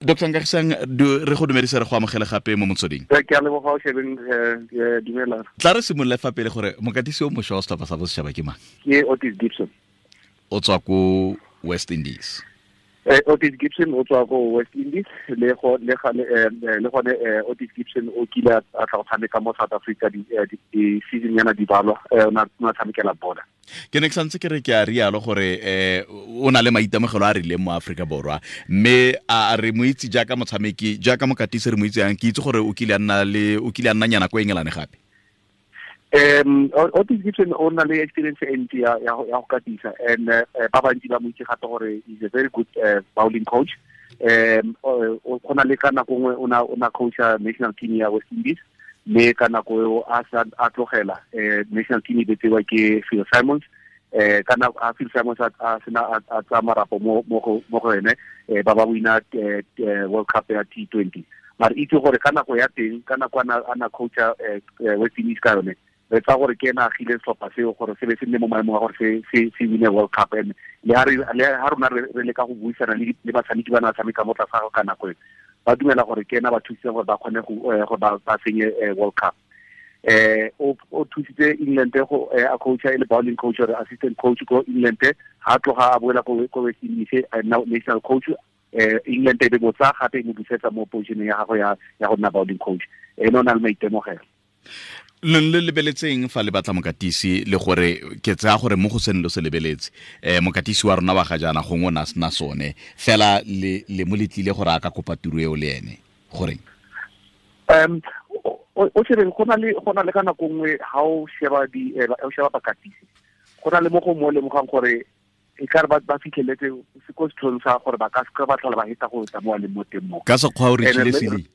Dr Nkagisang, re go dumedisa, re go amogele gape mo motsweding. Ke a leboga, o shebeng, dumela. Tla re simolole fa pele gore mokatisi o mošwa wa setlhopha sa bosetšhaba ke mang? Ke Otis Gibson. O tswa ko West Indies. Otis Gibson o tswa ko West Indies, le go le ga le gone Otis Gibson o kile a tla go tshameka mo South Africa di season yana di balwa, o na tshamekela Border. Ke ne ke santse ke re ke a rialo gore o na le maitemogelo a rileng mo Aforika Borwa, mme a re mo itse jaaka motshameki, jaaka mokatisi re mo itse yang? Ke itse gore o kile a nna le, o kile a nna nyana ko England gape. Otis Gibson o na le experience e ntsi ya go katisa, and ba bantsi ba mo itse gape gore is a very good bowling coach. O gona le ka nako nngwe o na coacha national team ya West Indies, mme ka nako eo a sa a tlogela, national team e betsewa ke Phil Simons. Ka nako a Phil Simons a sena a tsaya marapo mo go ene, ba wina World Cup ya T20. Mare itse gore ka nako ya teng, ka nako ana coacha West Indies ka yone, re tsa gore ke ena agile setlhopha seo gore se be se nne mo maemong a gore se wine World Cup. And le ha rona re leka go buisana le batshameki ba na tshameka mo tlase ga ka nako e, ba dumela gore ke ena ba thusitse gore ba kgone gore ba fenye World Cup. O thusitse England go a coacha e le bowling coach or assistant coach ko England. Ha tloga a boela ko West Indies, a nna national coach. England e be botsa gape e mo busetsa mo position ya gagwe ya go nna bowling coach. Ene o na le maitemogelo. Le le lebeletseng fa le batla mokatisi, le gore ke tsaya gore mo go seng lo se lebeletse, mokatisi wa rona wa ga jaana gongwe o ne a sena sone fela, le mo letlile gore a ka kopa tiro eo le ene goreng? O shebeng, go na le ka nako nngwe ha o sheba di o sheba bakatisi, go na le mo go mo lemogang gore e ka re ba fitlheletse se ko setlhong sa gore ba ka se ba tlhola ba heta go tla mo a leng mo teng mo. Ka sekgwa o re tshile ceiling.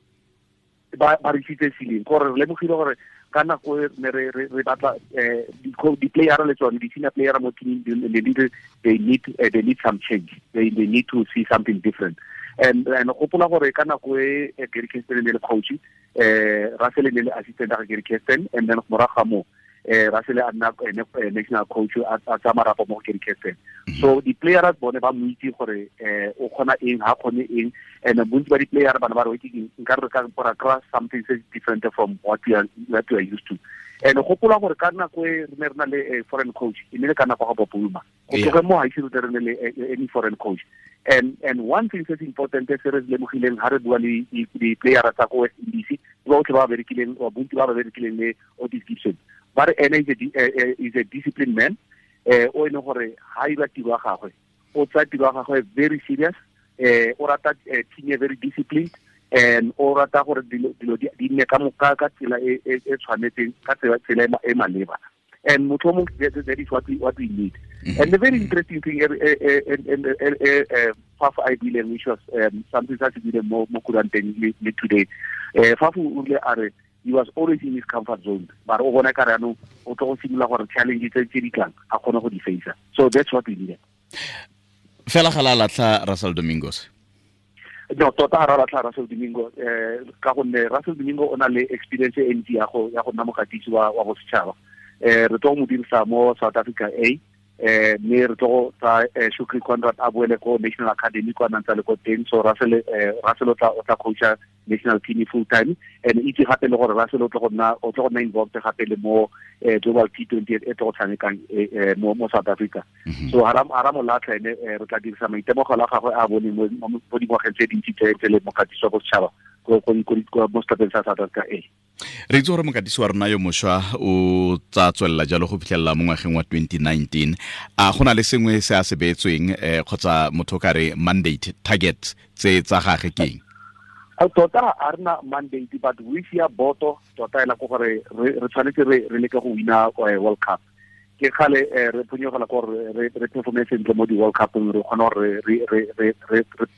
Ba re tshitse ceiling, gore re lemogile gore ka nako e ne re batla di-player le tsone di-senior player mo teaming, they need some change, they need to see something different. And gopola gore ka nako e Gary Kirsten ne le coach, Russell ne le assistant ga Gary Kirsten, and then morago ga moo Russell a nna ene national coach, a tsaya marapo mo go Gary Kirsten. So di-players bone ba mo itse gore o kgona eng, ha kgone eng, and bontsi ba di-player bana ba re ke nka re ka ra kry something se different from what we are used to. And gopola gore ka nako e re ne re na le foreign coach, e ne le ka nako ga Bob Woolmer. Go tloge mo ga ise re ne le any foreign coach. And one thing se important se re lemogileng ha re bua le di-player tsa ko West Indies, ba botlhe ba ba berekileng, bontsi ba ba berekileng le Otis Gibson, ba re ene is a disciplined man, o e leng gore ha ira tiro ya gagwe, o tsaya tiro ya gagwe very serious. O rata team e very disciplined, and o rata gore dilo di nne ka tsela e tshwanetseng, ka tsela e maleba. And motho o mongwe, that is what we need. And the very interesting thing Faf a buileng, which was something sa se buileng mo kuranteng le today, Faf o rile a re he was always in his comfort zone, but o bona ka re anong o tlo go simolola gore challenge tse di tlang a kgone go di face. So that's what we needed. Fela ga la latlha Russell Domingos? No, tota ga ra latlha Russell Domingo, ka gonne Russell Domingo o na le experience e ntsi ya go nna mokatisi wa bosetšhaba. Re tlo go mo dirisa mo South Africa A, mme re tlo go tsa Shukri Conrad a boele ko National Academy kwa nantsa le ko teng. So Russell o tla coacha national team full time, and itse gape le gore Russell o tlo go nna involved gape le mo Global T20 e tlo go tshamekang mo South Africa. So hara mo latlha ene, re tla dirisa maitemogelo a gagwe a bone mo dingwageng tse dintsi tse le mokatisi wa bosetšhaba mo setlhopheng sa South Africa A. Re itse gore mokatisi wa rona yo mošwa o tsa tswelela jalo go fitlhelela mo ngwageng wa 2019. A go na le sengwe se a se beetsweng, kgotsa motho o ka re mandate, target tse tsa gage ke eng? Tota a rena mandate, but we ya boto tota ela ko gore re tshwanetse re leke go wina World Cup. Ke kgale re phonyogela ko gore re performe sentle mo di-World Cupong, re kgona gore re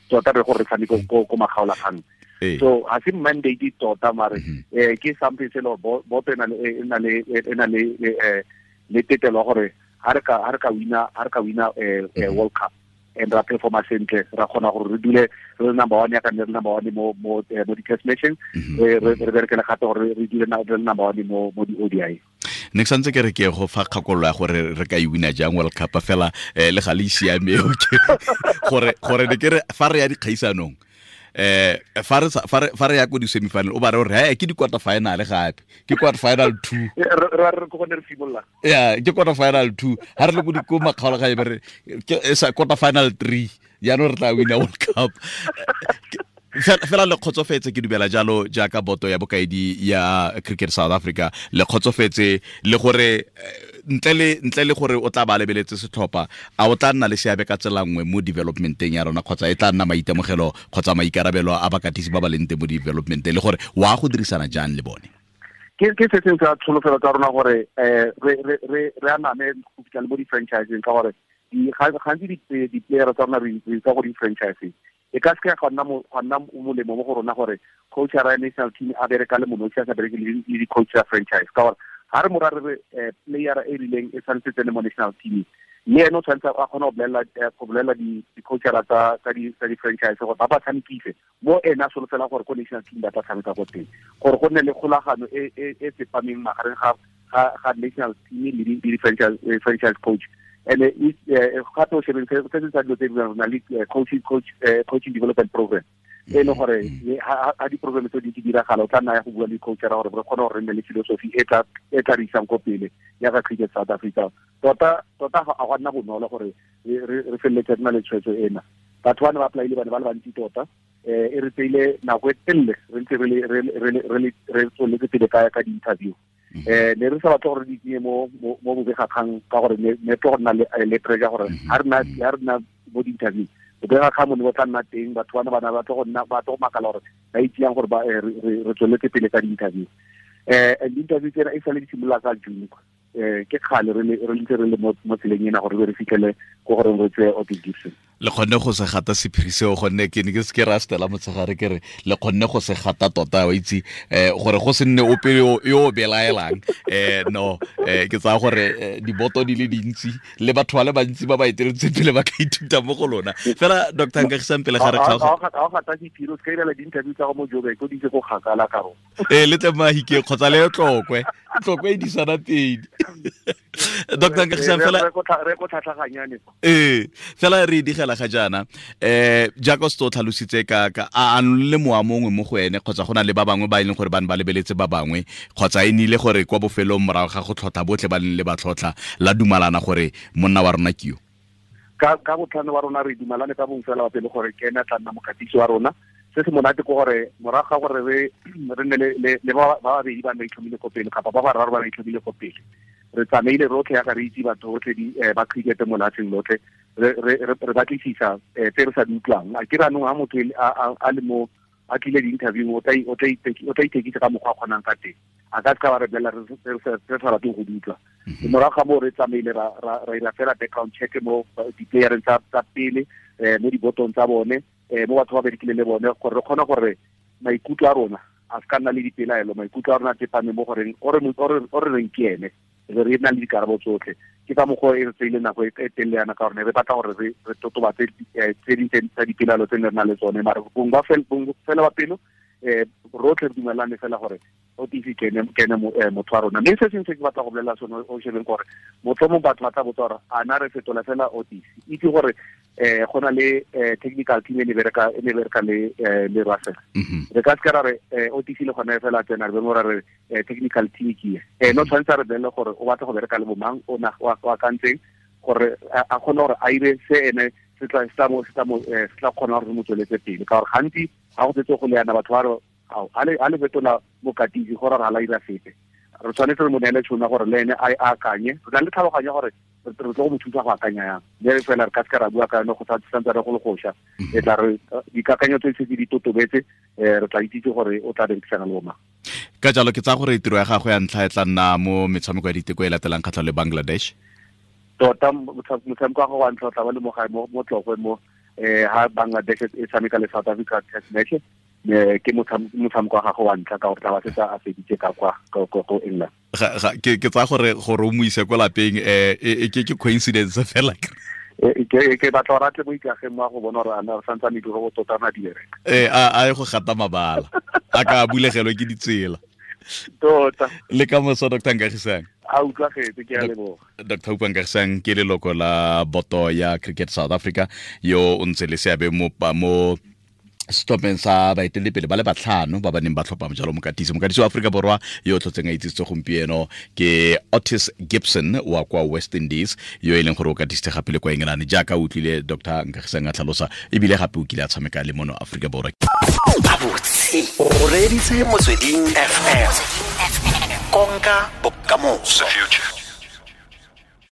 tota re gore re tshameke ko makgaolakgang. So ga se mandate tota, mare ke something se le boto e na le tetelo ya gore ha re ka wina World Cup and ra performa sentle, ra kgona gore re dule re le number one, ya ka nne re number one mo di-test matching, re berekele gape gore re dule re le number one mo di-ODI. Ne ke santse ke re ke go fa kgakololo ya gore re ka e wina jang World Cup fela, le ga le siame gore ne ke re fa re ya dikgaisanong, Fa re ya ko di-semifinal, o ba re gore he ke di-quarter final gape, ke quarter final 2. Re ko gone re simolola. Ya, ke quarter final 2. Ha re le ko makgaolakgang, be re ke sa quarter final 3, jaanong re tla wina World Cup. Fela le kgotsofetse, ke dumela jalo, jaaka boto ya bokaedi ya Cricket South Africa, le kgotsofetse le gore ntle le gore o tla ba lebeletse setlhopha, a o tla nna le seabe ka tsela nngwe mo developmenteng ya rona, kgotsa e tla nna maitemogelo kgotsa maikarabelo a bakatisi ba ba leng teng mo developmenteng, le gore wa go dirisana jang le bone? Ke se sengwe sa tsholofelo tsa rona gore re aname go fitlha le mo di-franchiseng, ka gore gantsi di-player tsa rona re tsa go di-franchiseng. E ka seke ga nna molemo mo go rona gore coach ya national team a bereka le monosi, a sa bereke le di-coach ya franchise, ka gore ga re mora re re player e rileng e tshwanetse tsene mo national team, mme ene o tshwanetse a kgone go bolelela di-coachera tsa di-franchise gore ba ba tshamekise mo ene a solofela gore ko national team ba tla tshameka ko teng, gore go nne le kgolagano e tsepameng magareng ga national team le di-franchise coach. And gape o shebeng se se sa dilo tse di rona le coaching development program, e leng gore ha di-program tse di diragala, o tla nna ya go bua le coachera gore re kgone gore re nne le philosophy e tla re isang ko pele ya ka Cricket South Africa. Tota ga go nna bonolo gore re feleletse re na le tshwetso ena. Batho ba ne ba apply-ile ba ne ba le bantsi tota, e re tseile nako e telele re ntse re tsweletse pele ka di-interview. Ne re sa batle gore di tsenye mo bobegakgang, ka gore ne tlo go nna le pressure gore ha re nna mo di-interview, bobegakgang mo ne bo tla nna teng, batho bana ba tlo go nna ba tlo go makala gore ba itseyang gore ba re tsweletse pele ka di-interview. And di-interview tsena e sale di simolola ka June, ke kgale re ntse re le mo tseleng ena gore re fitlhele ko gore re tseye Ottis Gibson. Le kgonne go se gata sephiri seo, gonne ke ne ke se ke ra stela motshegare, ke re le kgonne go se gata tota, wa itse, gore go se nne ope yo o belaelang. No, ke tsaya gore diboto di le dintsi le batho ba le bantsi ba ba eteletseng pele ba ka ithuta mo go lona. Fela Dr. Nkagisang, pele ga re kgaoga, ga o gata sephiri, o se ka irela di-interview tsa go mo Joburg, o di ise ko kgakala ka rona. Le tle Mahikeng kgotsa le Tlokwe, Tlokwe e disana pedi. Dr. Nkagisang, fela re ko tlhatlhaganyane. Fela re digela ga jaana, jaaka o se o tlhalositse ka a le mowa mongwe mo go ene, kgotsa go na le ba bangwe ba e leng gore ba ne ba lebeletse ba bangwe, kgotsa e nile gore kwa bofelong morago ga go tlhotlha botlhe ba leng le ba tlhotlha la dumalana gore monna wa rona ke yo? Ka botlhano wa rona re dumalane ka bong fela wa pele gore ke ene a tla nna mokatisi wa rona. Se se monate ke gore morago ga gore re nne le ba babedi ba ne ba itlhomile ko pele, kapa ba bararo ba ba itlhomile ko pele, re tsamaile rotlhe yaka re itse batho botlhe ba cricket mo lefatsheng lotlhe, re batlisisa tse re sa di utlwang. A ke re anong ha motho a le mo a tlile di-interview, o tla ithekisa ka mokgwa a kgonang ka teng, a ka seka ba re bolelela re sa rateng go di utlwa. Morago ga moo re tsamaile ra ira fela background check mo di-playereng tsa pele, mo dibotong tsa bone, mo batho ba berekile le bone, gore re kgone gore maikutlo a rona a se ka nna le dipelaelo, maikutlo a rona a tsepame mo goreng o re reng ke ene, re nna le dikarabo tsotlhe. Ke ka mokgwa e re tseile nako e telele yana, ka gore re batla gore re totobatse tse ding tsa dipelaelo tse ne re na le tsone, mare bong fela ba pelo rotlhe re dumelane fela gore Ottis ke ene motho wa rona. Mme se sengwe se ke batla go bolelela sone o shebeng gore motlhomong batho ba tla botsa gore a na re fetola fela Ottis, itse gore go na le technical team e ne bereka le Russell. Re ka seka ra re Ottis le gone fela tsena re be mo ra re technical team ke e no tshwanetse re bolele gore o batla go bereka le bomang, o na o akantseng gore a kgone gore a ire se ene se tla kgona gore re mo tsweletse pele, ka gore gantsi ga go setse go le yana batho ba re a le fetola mokatisi gore re a la ira sepe. Re tshwanetse re mo neele tšhono gore le ene a akanye, re na le tlhaloganyo gore re tlo go mo thusa go akanya yang, mme fela re ka seka ra bua ka yone go santse re go le goša. E tla re dikakanyo tse setse di totobetse, re tla itsitse gore o tla berekisana le bomang. Ka jalo ke tsaya gore tiro ya gagwe ya ntlha e tla nna mo metshameko ya diteko e latelang kgatlhanong le Bangladesh. Tota motshameko wa gagwe wa ntlha o tla ba le mo gae mo Tlokwe mo ha Bangladesh e tshameka le South Africa test match, ke motshameko wa gagwe wa ntlha, ka gore tla ba setse a feditse ka kwa ko England. Ke tsaya gore o mo ise ko lapeng, ke coincidence fela. Ke batla gore a tle mo ikageng mo a go bona gore a na santsane diroboto tota na di bereka. A ye go gata mabala, a ka bulegelwe ke ditsela. Tota. Le ka moso Dr. Nkagisang. A utlwagetse, ke a leboga. Dr. Oupa Nkagisang ke leloko la boto ya Cricket South Africa, yo o ntse le seabe mo Setlhopheng sa baeteledipele ba le batlhano ba ba neng ba tlhopha jalo mokatisi. Mokatisi wa Aforika Borwa yo o tlhotseng a itsisitse gompieno ke Ottis Gibson wa kwa West Indies, yo e leng gore o katisitse gape le kwa England, jaaka o utlwile Dr Nkagisang a tlhalosa, ebile gape o kile a tshameka le mono Aforika Borwa. Gabotse o reeditse Motsweding FM, konka bokamoso.